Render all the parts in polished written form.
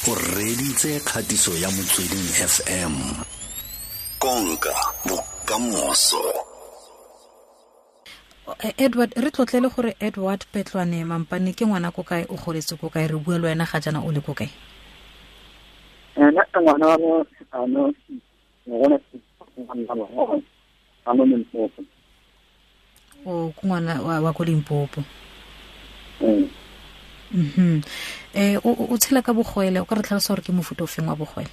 O reditse kgatiso ya Motsweding FM. Konka bokamoso. Edward, re tlotlele gore Edward Petlwane Mampane ke ngwana ko kae, o goletse ko kae, re bua le wena ga jaana o le ko kae? Nna ke ngwana wa mo ano, ngwana wa mo Limpopo. O ke ngwana wa ko Limpopo. O tshela ka bogwele, o ka re tlhalosa gore ke mofuta o feng wa bogwele?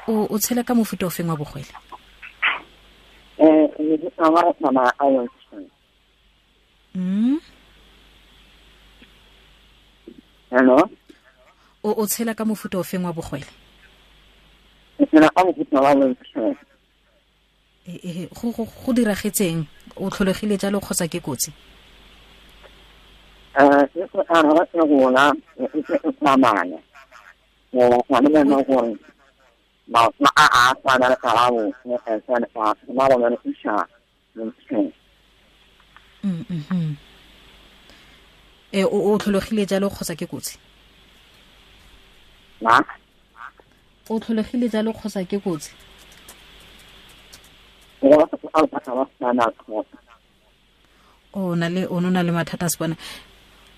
O tshela ka mofuta o feng wa bogwele? Hello? O tshela ka mofuta o feng wa bogwele? Ke tshela ka mofuta wa wheelchair. Go diragetseng? O tlholegile jalo kgotsa ke kotsi? Ke go araba ke gola, ke e tsamaya. Go tshwana le nna gore maoto a a tshwana le karabo, e tshwana le ba ba le isha wheelchair. O tlholegile jalo kgotsa ke kotsi? Na? O tlholegile jalo kgotsa ke kotsi? O na le o na le mathata a se bona.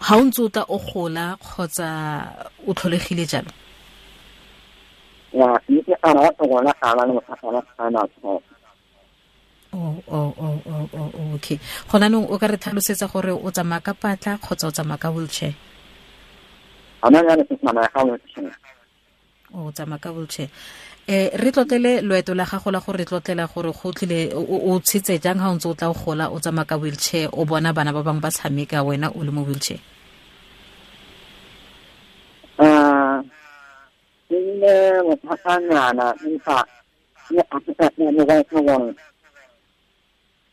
Ha o ntse o tla o gola kgotsa o tlholegile jalo? Ya, ke a rata gola a ba le mathata a spinal cord. Oh, okay. Gona nong o ka re tlhalosetsa gore o tsamaya ka patla kgotsa o tsamaya ka wheelchair? Ana ya ke tsamaya ka wheelchair. O tsamaya ka wheelchair. Re tlotlele loeto la gago la gore re tlotlela gore go tlile o tshetse jang ha o ntse o tla o gola o tsamaya ka wheelchair, o bona bana ba bangwe ba tshameka wena o le mo wheelchair? Ke ne mothatanyana empa ke a se ka ne ba ke gore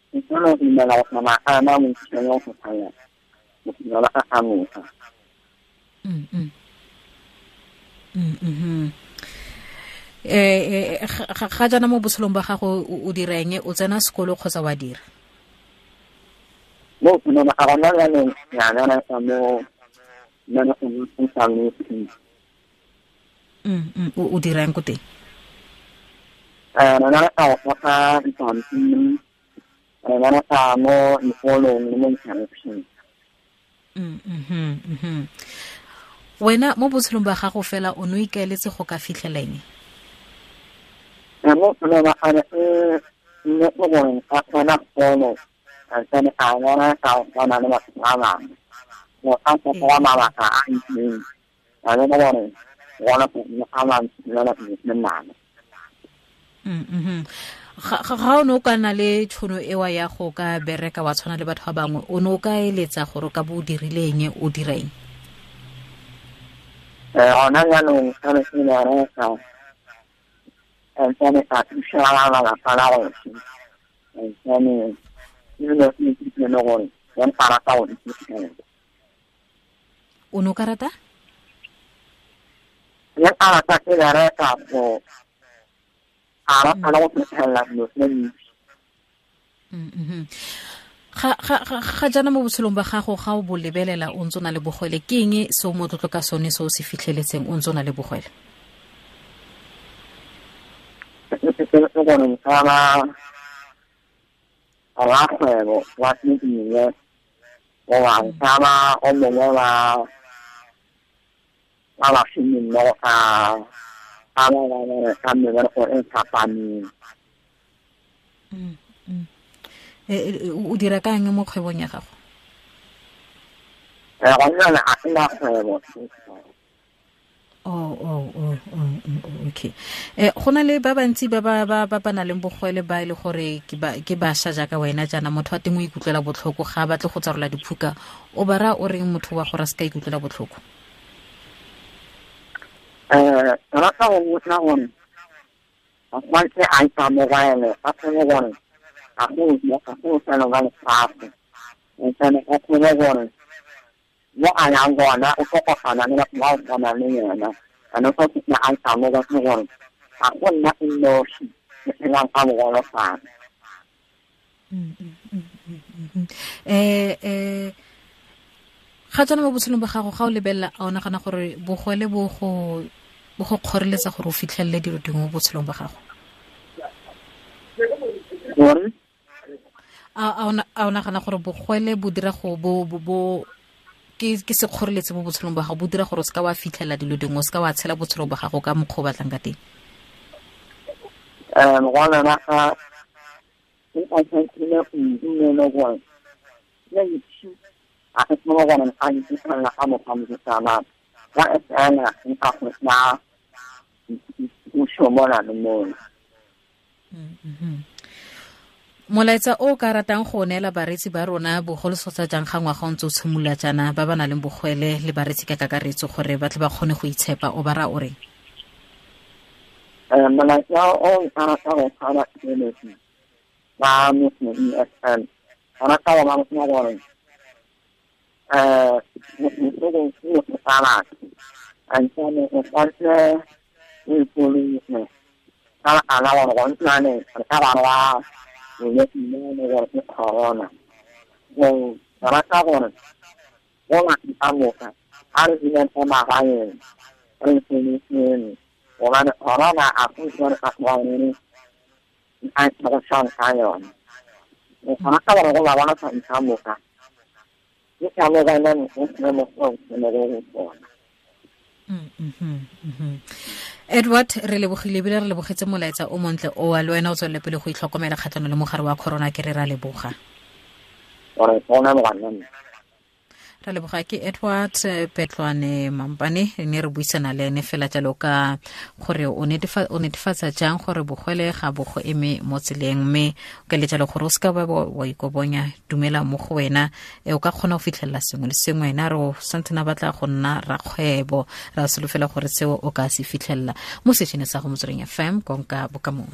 ke tsolo dumela go tsamaya ka yona wheelchair ya go tsamaya go fitlhela a amoga. Ga jaana mo botshelong ba gago o direng, o tsena sekolo kgotsa wa dira? Mo no a gona jaanong ya bereka mo nna go sa le O dirang ko teng? Re bereka go goga dipampiri, re bereka mo dikolong le mo dikerefeng. Wena mo botshelong ba gago fela o ne o ikaeletse go ka fitlhela eng? Mo botshelong ba gago, nne ke gore ka tsena sekolo, ka tsena ka bereka go tshwana le batho ba bangwe. Go ka fetola mabaka a itseng, ka bona gore gona go ama nna le nna. Ga o ne o ka nna le tšhono ewa ya go ka bereka wa tshwana le batho ba bangwe, o ne o ka eletsa gore o ka bo o dirile eng, o dira eng? Gona jaanong ka ne ke bereka, ntsane ka thusa ba lelapa la gešo, ntsane ebile ke ithutile le gore ke nka rata go iphitlhela. O ne o ka rata? Ke nka rata ke bereka go a rata le go fitlhelela dilo tse dintsi. Ga jaana mo botshelong ba gago ga o bo lebelela o ntse o na le bogwele, ke eng se o motlotlo ka sone se o se fitlheletseng o ntse o na le bogwele? Ke gore nka ba rakgwebo wa tse dingwe, goba nka ba o mongwe wa ba bašomimmogo ka ba ba bereka mebereko e fapaneng. O dira ka eng mo kgwebong ya gago? Gona jwale ga ke na kgwebo. Oh, okay. Go na le ba bantsi ba ba nang le bogwele ba e le gore ke bašwa jaaka wena jaana, motho wa teng o ikutlwela botlhoko ga a batle go tsarola diphuka, o ba raya o reng motho wa gore a se ka ikutlwela botlhoko? Rata go botsa gore a tshwanetse a ikamogele, a tsebe gore ga go bofelo ba lefatshe, ntsane a tsebe gore mo a yang gona o tlo kopana le batho ba o tshwanang le yena, and o tlo fitlha a ikamogetse gore ga go nna e nosi ke phelang ka bogolofadi. Ga tswana mo botshelong ba gago, ga o lebelela, a o nagana gore bogole bo go kgoreletsa gore o fitlhelele dilo dingwe mo botshelong ba gago? A o nagana gore bogole bo dira go bo ke sekgoreletsi mo botshelong ba gago, bo dira gore o seka wa fitlhelela dilo dingwe, o seka wa tshela botshelo ba gago ka mokgwa o batlang ka teng? Ngwana wa ka o tshwanetse go dumela gore a ke tsoma gore a ke tsena ka mokgwa mo tsamaya wa tsena nka go tla o shomona le mona. Molaetsa o ka ratang go neela bareetsi ba rona, bogolosotsa jang ga ngwaga o ntse o tshimolola jaana, ba ba nang le bogwele le bareetsi ka kakaretso, gore ba tle ba kgone go itshepa, o ba ra o reng? Molaetsa o ka ratang go neela bareetsi ba Motsweding FM, ba rata go ba botsa gore Edward, re lebogile ebile re lebogetse molaetsa o montle o wa le wena o tswelele pele go itlhokomela kgatlhanong le mogare wa corona, ke re ra leboga. Ra leboga. Ke Edward Petlwane Mampane, ne re buisana le ene fela jalo ka gore o netefatsa jang gore bogwele ga bo go eme mo tseleng, mme o ka le jalo gore o seka wa ikobonya, dumela mo go wena, o ka kgona go fitlhelela sengwe le sengwe. Ena re o santsene a batla go nna rakgwebo, ra solofela gore seo o ka se fitlhelela mo sešene sa go Motsweding FM. Konka bokamoso.